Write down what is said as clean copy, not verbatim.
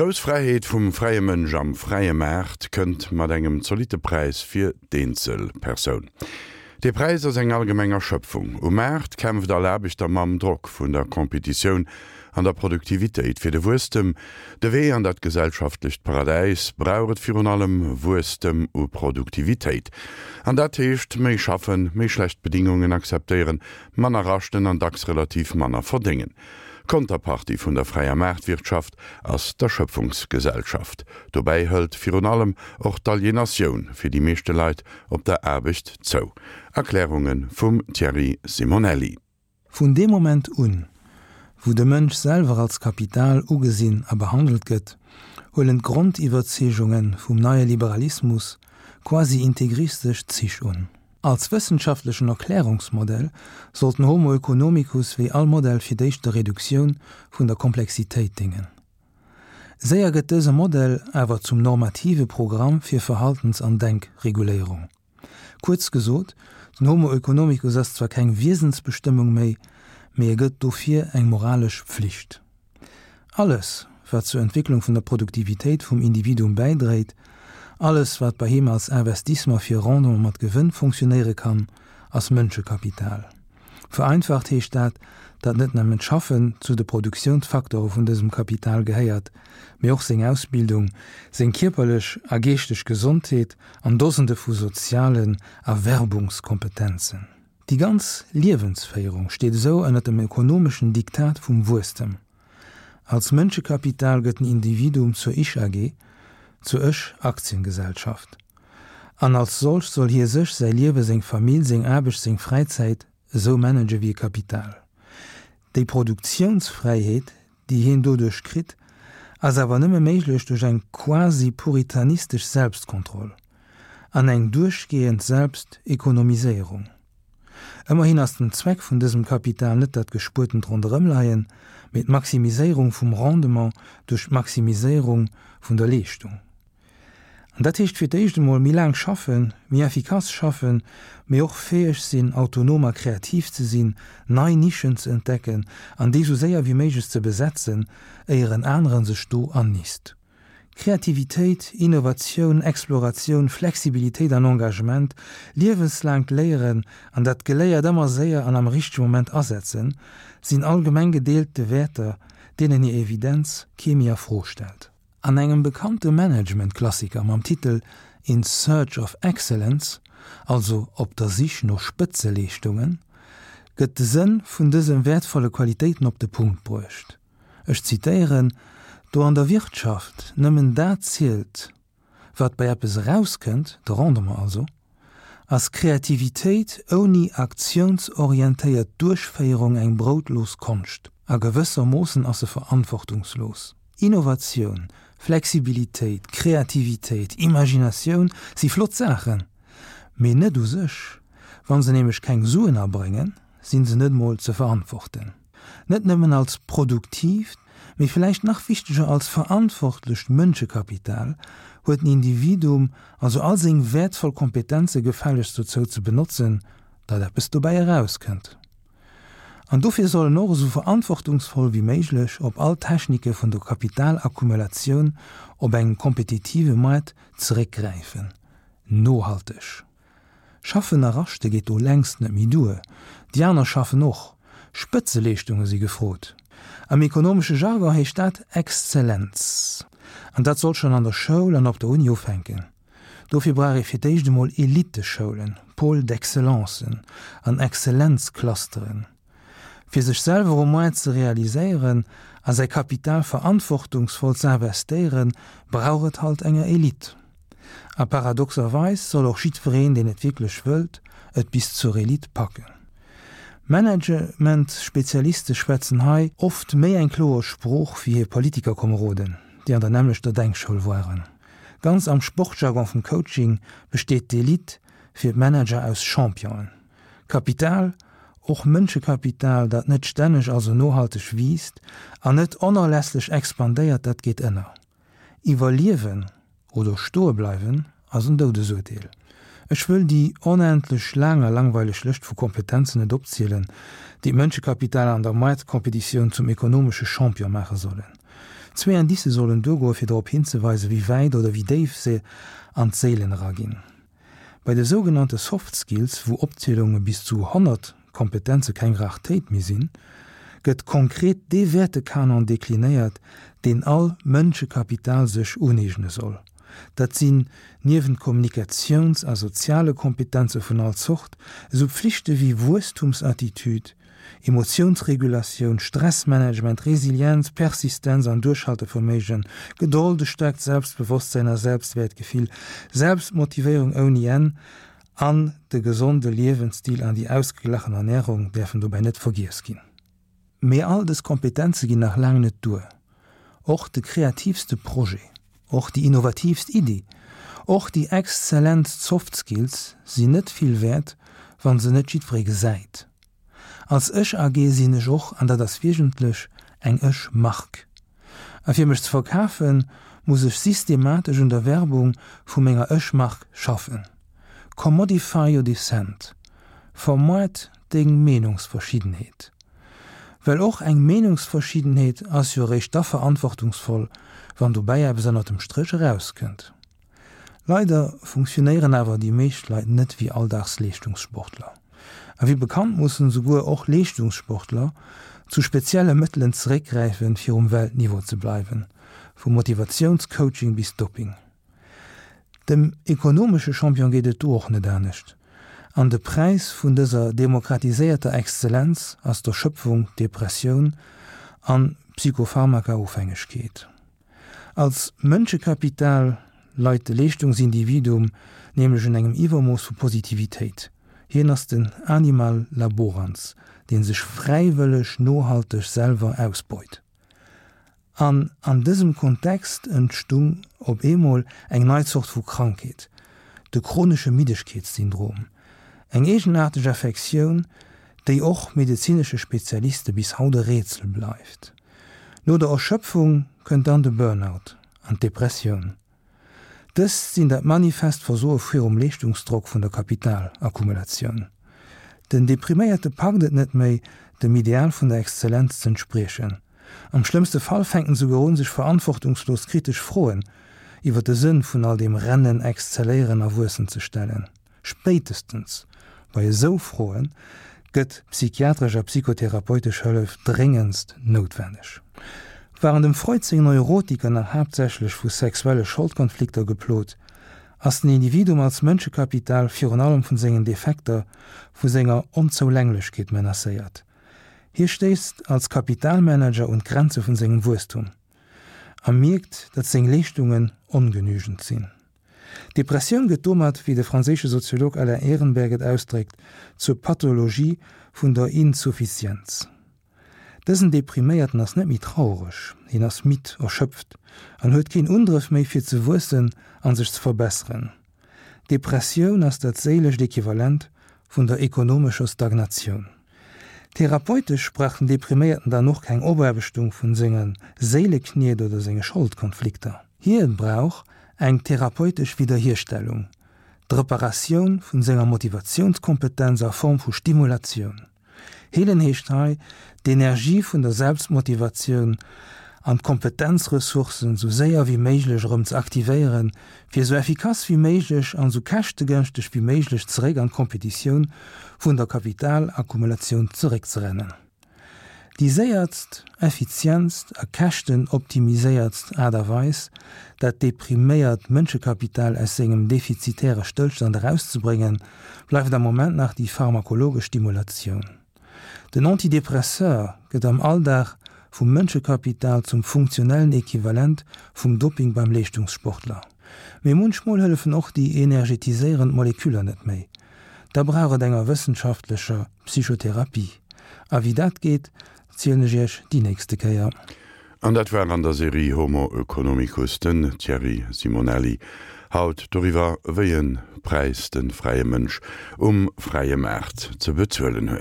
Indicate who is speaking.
Speaker 1: grouss Fräiheet vum fräie Mënsch am fräie Maart kënnt mat engem zolitte Präis fir d'eenzel Persoun. Dee Präis ass eng allgemeng Erschöpfung. Um Maart kämpft all Aarbechter mam Drock vun der Competitioun an der Produktivitéit. Fir de Wuesstem, de Wee an dat gesellschaftlecht Paradäis, brauch et virun allem Wuesstem u Produktivitéit. An dat heescht, méi schaffen, méi schlecht Bedingungen akzeptéieren, manner raschten an dacks relativ manner verdéngen. D'Konterpartie vun der fräier Maartwirtschaft ass d'Erschöpfungsgesellschaft. Dobäi hëlt virun allem och d'Alienatioun fir déi meeschte Leit op der Aarbecht zou. Erklärunge vum Thierry Simonelli.
Speaker 2: Vun deem Moment un, wou de Mënsch selwer als Kapital ugesinn a behandelt gëtt, huelen d'Grondiwwerzeegunge vum neie Liberalismus quasi integristesch Zich un. Als wëssenschaftlechen Erklärungsmodell sollt den Homo oeconomicus wéi all Modell fir d'éischt der Reduktioun vun der Komplexitéit déngen. Séier gëtt dëse Modell awer zum normative Programm fir Verhaltens an Denkreguléierung. Kuerz gesot, den Homo oeconomicus ass zwar keng Wiesensbestëmmung méi, mee e gëtt dofir eng moralesch Pflicht. Alles, wat zur Entwécklung vun der Produktivitéit vum Individuum bäidréit, alles, wat bei him als Investissement fir Rendement mat Gewënn fonctionnéiere kann, ass Mënschekapital. Vereinfacht heescht dat, datt net nëmmen d'Schaffen zu de Produktiounsfaktore vun dësem Kapital gehéiert, mee och seng Ausbildung, seng kierperlech a geeschteg Gesondheet an Dosende vu sozialen Erwerbungskompetenzen. Déi ganz Liewensféierung steet esou ënner dem ökonomeschen Diktat vum Wuesstem. Als Mënschekapital gëtt den Individuum zur Ich-AG, zur Ech-Aktiengesellschaft. An als solcht soll hie sech, säi Liewe, seng Famill, seng Aarbecht, seng Fräizäit esou manage wéi e Kapital. Déi Produktiounsfräiheet, déi hien doduerch kritt, ass awer nëmme méiglech duerch eng quasi puritanistesch Selbstkontroll an eng duerchgehend Selbstekonomiséierung. Ëmmerhin ass den Zweck vun dësem Kapital net dat gespuertent Ronderëmleien, mee d'Maximiséierung vum Rendement duerch d'Maximiséierung vun der Leeschtung. An dat heescht fir d'éischt emol méi laang schaffen, méi effikass schaffen, mee och fäeg sinn, autonom a kreativ ze sinn, nei Nischen ze entdecken an déi sou séier wéi méiglech ze besetzen, éier en aneren sech do annisst. Kreativitéit, Innovatioun, Exploratioun, Flexibilitéit an Engagement, liewenslaangt Léieren an dat Geléiert ëmmer séier an am richtege Moment asetzen, sinn allgemeng gedeelte Wäerter, deenen hir Evidenz kee méi a Fro stellt. An engem bekannte Management-Klassiker mam Titel In Search of Excellence, also Op der Sich no Spëtzeleeschtungen, gëtt de Sënn vun dëse wäertvolle Qualitéiten op de Punkt bruecht. Ech zitéieren, Do an der Wirtschaft nëmmen dat zielt, wat bei eppes erauskënnt, de Rendement also, ass Kreativitéit ouni aktiounsorientéiert Duerchféierung eng broutlos Konscht a gewëssermoossen ass se verantwortungslos. Innovatioun, Flexibilitéit, Kreativitéit, Imaginatioun si flott Saachen, mee net u sech. Wa se nämlech keng Suen abréngen, si se net mol ze verantworten. Net nëmmen als produktiivt, mee villäicht nach wichteger als verantwortlecht Mënschekapital huet den Individuum also all seng wäertvoll Kompetenze gefällegst dozou ze benotzen, datt eppes dobäi erauskënnt. An dofir soll en och esou verantwortungsvoll wéi méiglech op all Technike vun der Kapitalakkumulatioun op engem kompetitive Moart zeréckgräifen. Nohalteg schaffen a raschte geet do längst net méi duer, déi aner schaffen och. Spëtzeleeschtunge si gefrot. Am ekonomesche Jargon heescht dat Exzellenz. An dat soll schonn an der Schoul an op der Uni ufänken. Dofir brauch ee fir d'éischt emol Eliteschoulen, Pôles d'excellencen an Exzellenzclusteren. Fir sech selwer um Moart ze realiséieren a säi Kapital verantwortungsvoll ze investéieren, brauch et halt enger Elite. A paradoxerweis soll och jiddwereen, deen et wierklech wëllt, et bis zur Elite packen. Managementspezialiste schwätzen hei oft méi eng kloer Sprooch wéi hir Politikerkomeroden, déi an der nämmlechter Denkschoul waren. Ganz am Sportjargon vum Coaching besteet d'Elite fir d'Manager aus Championen. Kapital, och Mënschekapital, dat net stänneg, also nohalteg wiisst an net onerlässlech expandéiert, dat geet ënner. Iwwerliewen oder stoe bleiwen ass en Doudesurteel. Ech wëll déi onendlech laang a langweileg Lëscht vu Kompetenzen net opzielen, déi d'Mënschekapital an der Moartkompetitioun zum ekonomesche Champion maache sollen. Zwee Indicë sollen duergoe fir drop hinzeweisen, wéi wäit oder wéi déif se an d'Séilen eraginn. Bei de sougenannte Soft Skills, wou Opzielunge bis zu 100 Kompetenze keng Rartéit méi sinn, gëtt konkret dee Wäertekanon deklinéiert, deen all Mënschekapital sech uneegne soll. Dat sinn, niewent Kommunikatiouns a soziale Kompetenze vun all Zort, esou Pflichte wéi Wuesstumsattitüd, Emotiounsregulatioun, Stressmanagement, Resilienz, Persistenz an Duerchhalteverméigen, Gedold, e staarkt Selbstbewosstsäin a Selbstwäertgefill, Selbstmotivéierung ouni Enn an de gesonde Liewensstil an déi ausgeglachen Ernärung däerfen dobäi net vergiess ginn. Mee all dës Kompetenze ginn nach laang net duer. Och de kreativste Projet, och déi innovatiivst Iddi, och déi exzellentst Soft Skills sinn net vill wäert, wa se net jiddweree gesäit. Als Ech AG sinn ech och, an dat ass wiesentlech, eng Ech Mark. A fir mech ze verkafen, muss ech systematesch un der Werbung vu menger Ech Mark schaffen. Commodify your dissent. Vermoart deng Meenungsverschiddenheet. Well och eng Meenungsverschiddenheet ass jo eréischt da verantwortungsvoll, wann dobäi eppes ënnert dem Stréch erauskënnt. Leider funktionéieren awer déi meescht Leit net wéi Alldagsleeschtungssportler. A wéi bekannt mussen esouguer och Leeschtungssportler zu spezielle Mëttelen zeréckgräifen, fir um Weltniveau ze bleiwen, vu Motivatiounscoaching bis Doping. Dem ekonomesche Champion geet et do och net anescht. An de Präis vun dëser demokratiséierter Exzellenz ass d'Erschöpfung, d'Depressioun an d'Psychopharmaka-Ofhängegkeet. Als Mënschekapital leit de Leeschtungsindividuum nämlech un engem Iwwermooss vu Positivitéit. Hien ass den Animal laborans, dee sech fräiwëlleg nohalteg selwer ausbeut. An an dësem Kontext entstung op eemol eng nei Zort vu Krankheet, de chronesche Middegkeetssyndrom, eng eegenaarteg Affektioun, déi och medezinesche Spezialiste bis haut e Rätsel bleift. No der Erschöpfung kënnt dann de Burnout an d'Depressioun. Dëst sinn dat manifest Versoe virum Leeschtungsdrock vun der Kapitalakkumulatioun. Den Depriméierte packt et net méi, dem Ideal vun der Exzellenz z'entspriechen. Am schlëmmste Fall fänkt en souguer un, sech verantwortungslos kritesch Froen iwwer de Sënn vun all deem Rennen, Exzelléieren a Wuessen ze stellen. Spéitestens bei esou Froe gëtt psychiatresch a psychotherapeutesch Hëllef dréngendst noutwenneg. Waren dem Freud seng Neurotiker nach haaptsächlech vu sexuelle Scholdkonflikter geplot, ass den Individuum als Mënschekapital virun allem vun sengen Defekter, vu senger Onzoulänglechkeet menacéiert. Hie stéisst als Kapitalmanager un d'Grenze vun sengem Wuesstum a mierkt, datt seng Leeschtungen ongenügend sinn. D'Depressioun gëtt domat, wéi de franséische Soziolog Alain Ehrenberg et ausdréckt, zur Pathologie vun der Insuffizienz. Dësen Depriméierten ass net méi traureg, hien ass midd, erschöpft an huet keen Undrëff méi fir ze wuessen an sech ze verbesseren. D'Depressioun ass dat séilescht Equivalent vun der ekonomescher Stagnatioun. Therapeutesch brauch den Depriméierten dann och keng Opaarbechtung vun senge Séilekniet oder senge Scholdkonflikter. Hien brauch eng therapeutesch Widderhierstellung, d'Reparatioun vun senger Motivatiounskompetenz a Form vu Stimulatioun. Heelen heescht hei, d'Energie vun der Selbstmotivatioun an d'Kompetenzressourcen sou séier wéi méiglech erëm ze aktivéieren, fir sou effikass wéi méiglech an sou käschtegënschteg wéi méiglech zeréck an d'Kompetitioun vun der Kapitalakkumulatioun zeréckzerennen. Déi séiertst, effizientst a käschtenoptimiséiertst Aart a Weis, dat depriméiert Mënschekapital aus sengem defizitäre Stëllstand erauszebréngen, bleift am Moment nach déi pharmakologesch Stimulatioun. Den Antidepresseur gëtt am Alldag vum Mënschekapital zum funktionellen Equivalent vum Doping beim Leeschtungssportler. Mee munchmol hëllefen och déi energetiséierend Moleküller net méi. Da brauch et enger wëssenschaftlecher Psychotherapie. A wéi dat geet, zielen ech iech déi nächste Kéier.
Speaker 1: An dat war an der Serie Homo Oeconomicus den Thierry Simonelli. Haut doriwwer, wéi e Präis de fräie Mënsch um fräie Maart ze bezuelen huet.